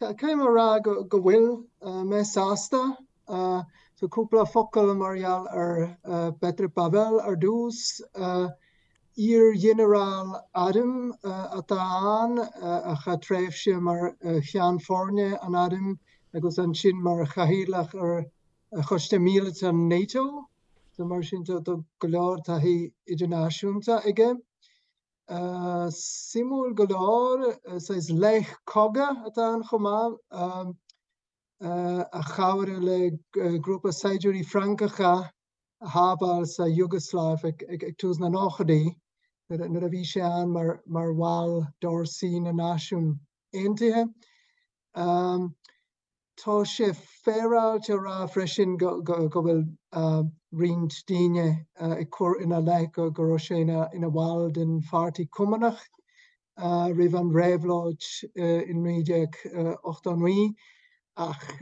Caithfidh mé a rá go bhfuil mé sásta. So cúpla focal mar gheall ar Petr Pavel ar dtús. Iar-ghinearál airm atá ann, a chaith tréimhse mar cheann foirne an airm agus ansin mar chathaoirleach ar Choiste Míleata NATO. So mar sin tá go leor taithí idirnáisiúnta aige. Suimiúil go leor, saghas laoch cogaidh atá ann chomh maith, a chabhraigh le grúpa saighdiúirí Francacha a shábháil sa Iúgasláiv ag tús na nóchaidí, nuair a bhí sé ann mar bhall d'fhórsaí na Náisiún Aontaithe. Tá sé féaráilte a rá freisin go bhfuil roinnt daoine ag cur ina leith go raibh sé ina bhall den Pháirtí Cumannach roimh an réabhlóid in 1989 ach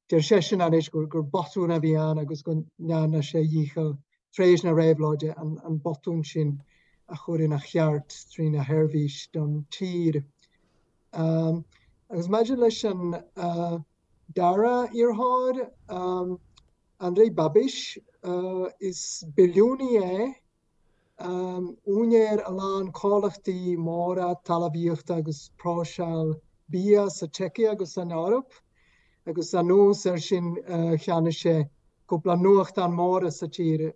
deir seisean anois gur botún a bhí ann agus go ndearna sé a dhícheall tar éis na réabhlóide an botún sin a chur ina cheart trína sheirbhís don tír. Agus maidir leis an dara iarrthóir, Andrej Babiš, is billiúnaí é, úinéir a lán comhlachtaí móra talmhaíochta agus próiseáil bia sa tSeicia agus san Eoraip, agus anuas air sin cheannaigh sé cúpla nuachtán móra sa tír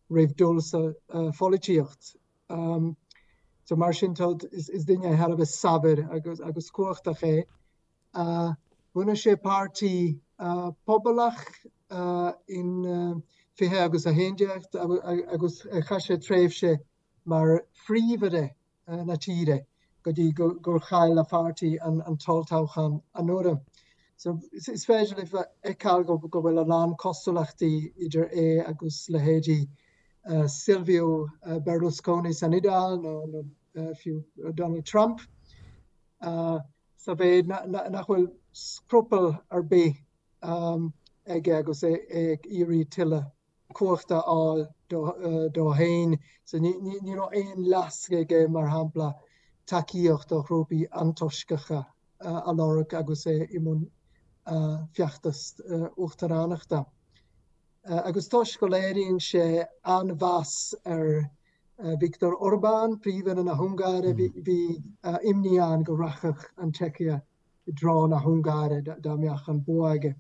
roimh dul sa pholaitíocht. So mar sin tá, is duine thar a bheith saibhir agus agus cumhachtach é. Bhunaigh sé páirtí pobalach in 20 agus 11 agus chaith sé tréimhse mar phríomh-aire na tíre go dtí gur chaill a pháirtí an t-olltoghchán anuraidh. So is féidir libh a fheiceáil go bhfuil a lán cosúlachtaí idir é agus leithéidí Silvio Berlusconi san Iodáil nó fiú Donald Trump, sa mhéid nach bhfuil scrupall ar bith aige agus é ag iarraidh tuilleadh cumhachta a fháil dó féin. So ní raibh aon leasc aige, mar shampla, tacaíocht ó ghrúpaí antoisceacha a lorg agus é i mbun feachtas uachtaránachta. Agus toisc go léiríonn sé an-mheas ar Viktor Orbán, Príomh-Aire na hUngáire, bhí imní ann go rachadh an tSeicia i dtreo na hUngáire dá mbeadh an bua aige.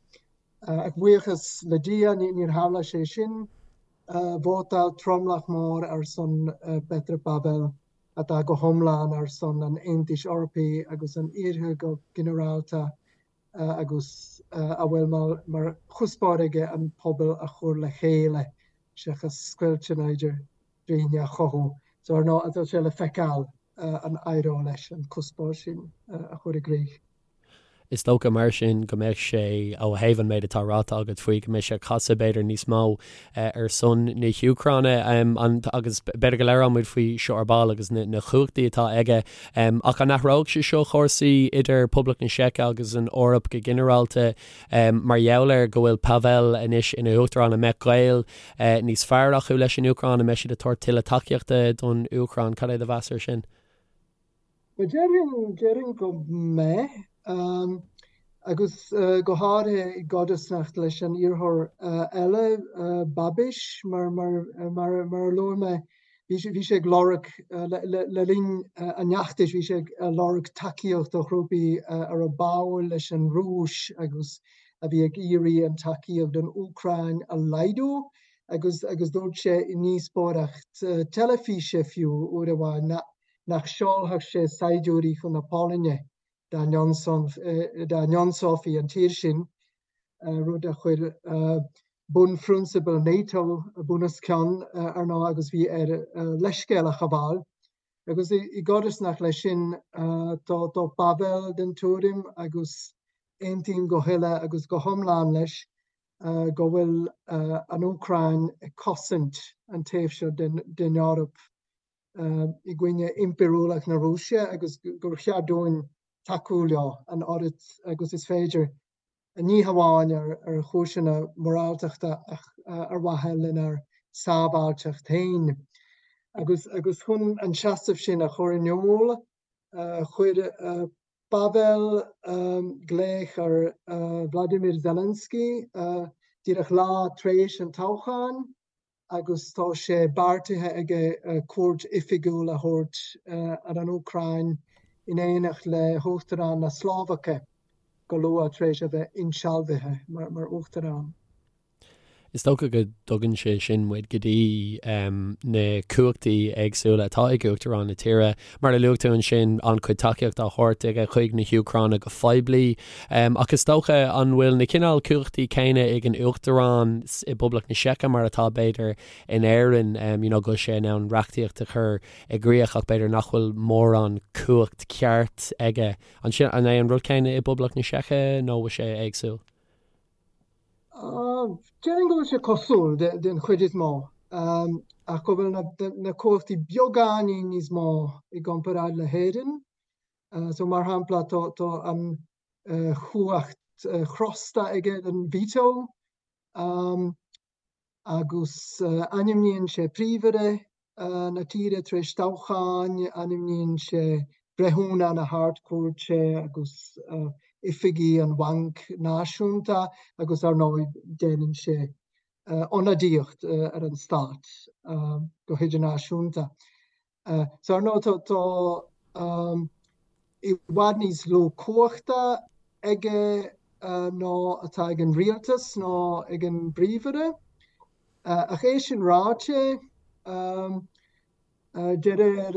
Ach buíochas le Dia, níor tharla sé sin. Vótáil tromlach mór ar son Petr Pavel, atá go hiomlán ar son an Aontais Eorpaigh agus an Iarthair go ginearálta. agus a bhfuil mar chuspóir aige an pobal a chur le chéile seachas scoilteanna idir daoine a chothú. So ar ndóigh, tá sé le feiceáil an éireoidh leis an cuspóir sin a chur i gcrích. Is dócha mar sin go mbeadh sé, ó thaobh an méid atá ráite agat faoi, go mbeidh sé ag casadh b'fhéidir níos mó ar son na hÚcráine agus b'fhéidir go labhróidh muid faoi seo ar ball agus na cumhachtaí atá aige. Ach an athróidh sé seo cúrsaí idir Poblacht na Seice agus an Eoraip go ginearálta mar gheall ar go bhfuil Pavel anois ina uachtarán? An mbeadh gaol níos fearr acu leis an Úcráin? An mbeidh siad ag tabhairt tuilleadh tacaíochta don Úcráin? Cad é do mheas air sin? Bhuel, déarfainn, déarfainn go mbeidh, agus go háirithe i gcodarsnacht leis an iarrthóir eile, Babiš, mar, mar, mar, mar a luaigh mé, bhí sé, bhí sé ag lorg, le, le linn an fheachtais, bhí sé ag lorg tacaíocht ó ghrúpaí a raibh báúil leis an Rúis agus a bhí ag iarraidh an tacaíocht don Úcráin a laghdú, agus, agus dúirt sé i ndíospóireacht teilifíse fiú uair amháin nach, nach seolfadh sé saighdiúirí chun na Polainne dá n-ionsófaí an tír sin, rud a chuir bunphrionsabail NATO bunoscionn, ar ndóigh, agus bhí air leithscéal a ghabháil. Agus i gcodarsnacht leis sin, tá Pavel den tuairim, agus aontaím go huile agus go hiomlán leis, go bhfuil an Úcráin ag cosaint an taobh seo den Eoraip i gcoinne impiriúlacht na Rúise agus gur cheart dúinn tacú leo an oiread agus is féidir, ní hamháin ar chúiseanna moráltachta ach ar mhaithe lenár sábháilteacht féin. Agus chun an seasamh sin a chur in iúl, chuir. Pavel glaoch ar Vladimir Zelensky díreach lá tar éis an toghcháin agus tá sé beartaithe aige cuairt oifigiúil a thabhairt ar an Úcráin in éineacht le hUachtarán na Slóvaice go luath tar éis a bheith insealbhaithe mar Uachtarán. Is dócha go dtugann sé sin muid go dtí na cumhachtaí éagsúla atá ag Uachtarán na tíre. Mar a luaigh tú ansin, an-chuid tacaíocht á thabhairt aige chuig na hÚcráine go poiblí. Ach is dócha, an bhfuil na cineál cumhachtaí céanna ag an Uachtarán i bPoblacht na Seice mar atá b'fhéidir in Éirinn, you know, go bhfuil sé in ann reachtaíocht a chur i gcrích ach b'fhéidir nach bhfuil mórán cumhacht ceart aige. An sin, an é an rud céanna i bPoblacht na Seice nó bhfuil sé éagsúil? Déarfainn go bhfuil sé cosúil den chuid is mó, ach go bhfuil na cumhachtaí beagáinín níos mó i gcomparáid le hÉirinn. So mar shampla tá an chumhacht chrosta aige, an veto. Agus ainmníonn sé príomhaire na tíre tar éis toghcháin, ainmníonn sé breithiúna na hArd-Chúirte agus oifigigh an Bhainc Náisiúnta agus ar ndóigh déanann sé ionadaíocht ar an stát go hidirnáisiúnta. So ar ndóigh tá i bhfad níos lú cumhachta aige ná atá ag an rialtas nó ag an bpríomhaire. Ach é sin ráite, de réir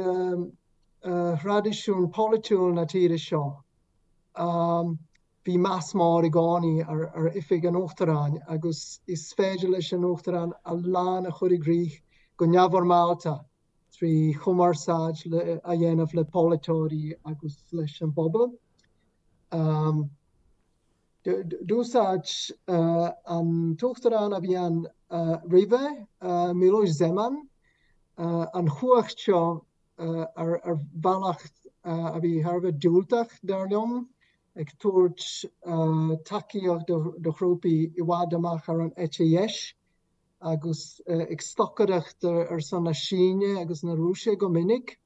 thraidisiún polaitiúil na tíre seo, bhí meas mór i gcónaí ar oifig an Uachtaráin agus is féidir leis an Uachtarán a lán a chur i gcrích go neamhfhoirmeálta trí chumarsáid a dhéanamh le polaiteoirí agus leis an bpobal. D'úsáid an t-uachtarán a bhí ann roimhe, Miloš Zeman, an chumhacht seo ar bhealach a bhí thar a bheith diúltach, dar liom, ag tabhairt tacaíocht do ghrúpaí i bhfad amach ar an eite dheis agus ag stocaireacht ar son na Síne agus na Rúise go minic.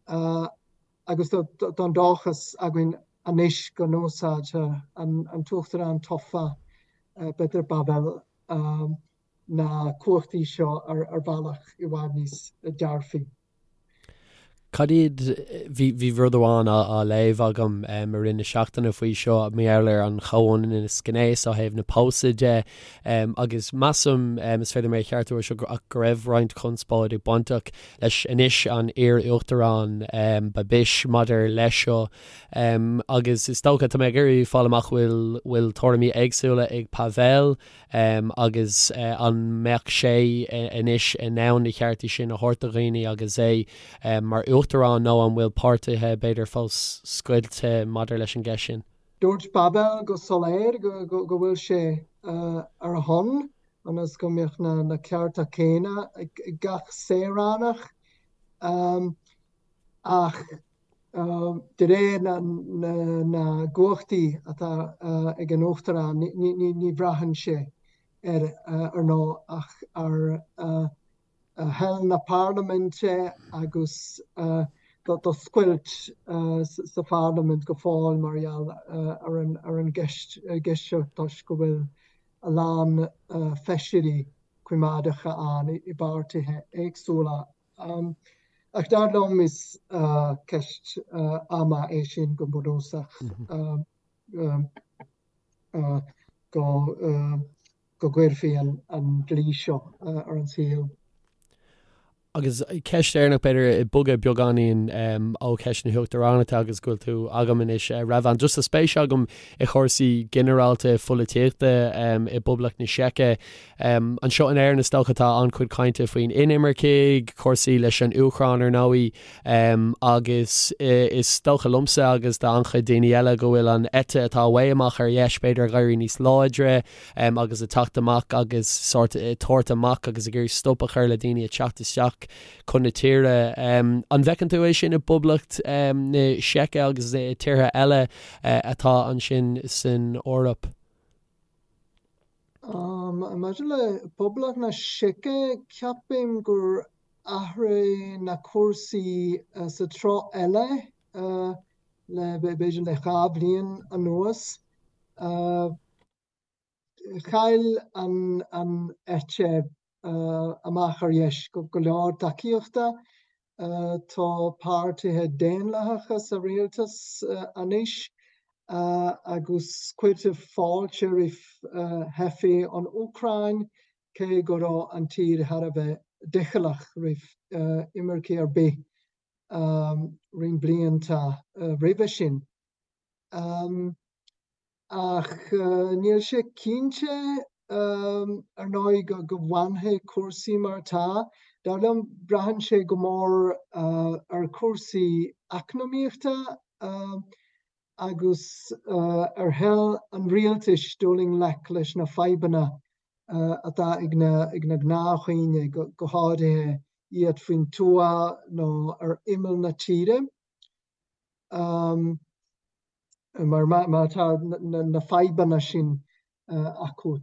Agus tá an dóchas againn anois go n-úsáidfidh an tUachtarán tofa, Petr Pavel, na cumhachtaí seo ar bhealach i bhfad níos dearfaí. Cad iad, bhí rud amháin á léamh agam i rith na seachtaine faoi seo, mar gheall ar an chomhionannas gnéis ó thaobh na pósadh de agus measaim, is féidir mé a cheartú ar seo, ach go raibh roinnt conspóide bainteach leis anois an iar-uachtarán Babiš maidir leis seo agus is dócha, tá mé ag iarraidh fáil amach bhfuil bhfuil tuairimí éagsúla ag Pavel agus an mbeadh sé anois in ann na ceartaí sin a thabhairt do dhaoine agus é mar uachtarán nó an bhfuil páirtithe b'fhéidir fós scoilte maidir leis an gceist sin? Dúirt Pavel go soiléir go bhfuil sé ar a shon ionas go mbeadh na cearta céanna ag gach saoránach. Ach de réir na gcumhachtaí atá ag an Uachtarán, ní bhraitheann sé ar ar ndóigh ach ar thoil na parlaiminte agus tá scoilt sa pharlaimint go fóill mar gheall ar an gceist seo toisc go bhfuil a lán feisirí coimeádacha ann i bpáirtithe éagsúla. Ach dar liom is ceist ama é sin go bunúsach go go gcuirfí an dlí seo ar an saol. Agus ceist dheireanach, b'fhéidir, ag bogadh beagáinín ó cheist na huachtaránachta agus go bhfuil tú agam anois, Revan, just tá spéis agam i chúrsaí ginearálta pholaitíochta i bPoblacht na Seice. Anseo in Éirinn is dócha tá an-chuid cainte faoin inimircigh, cúrsaí leis an Úcráin ar ndóigh, agus is dócha liomsa agus d'an-chuid daoine eile go bhfuil an eite atá way amach ar dheis b'fhéidir ag éirí níos láidre, agus ag teacht amach agus sórt ag tabhairt amach agus ag iarraidh stop a chur le daoine ag teacht isteach chun na tíre. An bhfeiceann tú é sin i bPoblacht na Seice agus i tíortha eile atá ansin san Eoraip? Maidir le Poblacht na Seice, ceapaim gur athraigh na cúrsaí sa treo eile. le b'fhéidir le 2 bhliain anuas. Chaill an eite amach ar dheis go leor tacaíochta. Tá páirtithe daonlathacha sa rialtas anois agus cuirtear fáilte roimh theifigh ón Úcráin, cé go raibh an tír thar a bheith doicheallach roimh imircigh ar bith roinnt blianta roimhe sin. Ach níl sé cinnte, ar ndóigh, go bhfanfaidh cúrsaí mar atá. Dar liom, braitheann sé go mór ar chúrsaí eacnamaíochta agus ar thoil an rialtais dul i ngleic leis na fadhbanna atá ag na gnáthdhaoine, go háirithe iad faoin tuath nó ar imeall na tíre. Mar má tá na fadhbanna sin acu,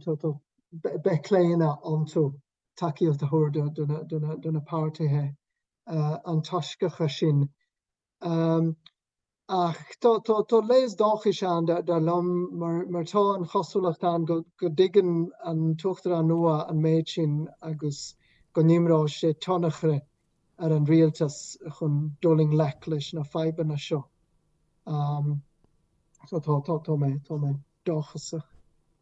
beidh claonadh iontu tacaíocht a thabhairt do na páirtithe antoisceacha sin. Ach tá léas dóchais ann, dar liom, mar tá an chosúlacht ann go dtuigeann an tUachtarán nua an méid sin agus go n-imreoidh sé tionchar ar an rialtas chun dul i ngleic leis na fadhbanna seo. So tá, tá, tá mé, tá mé dóchasach.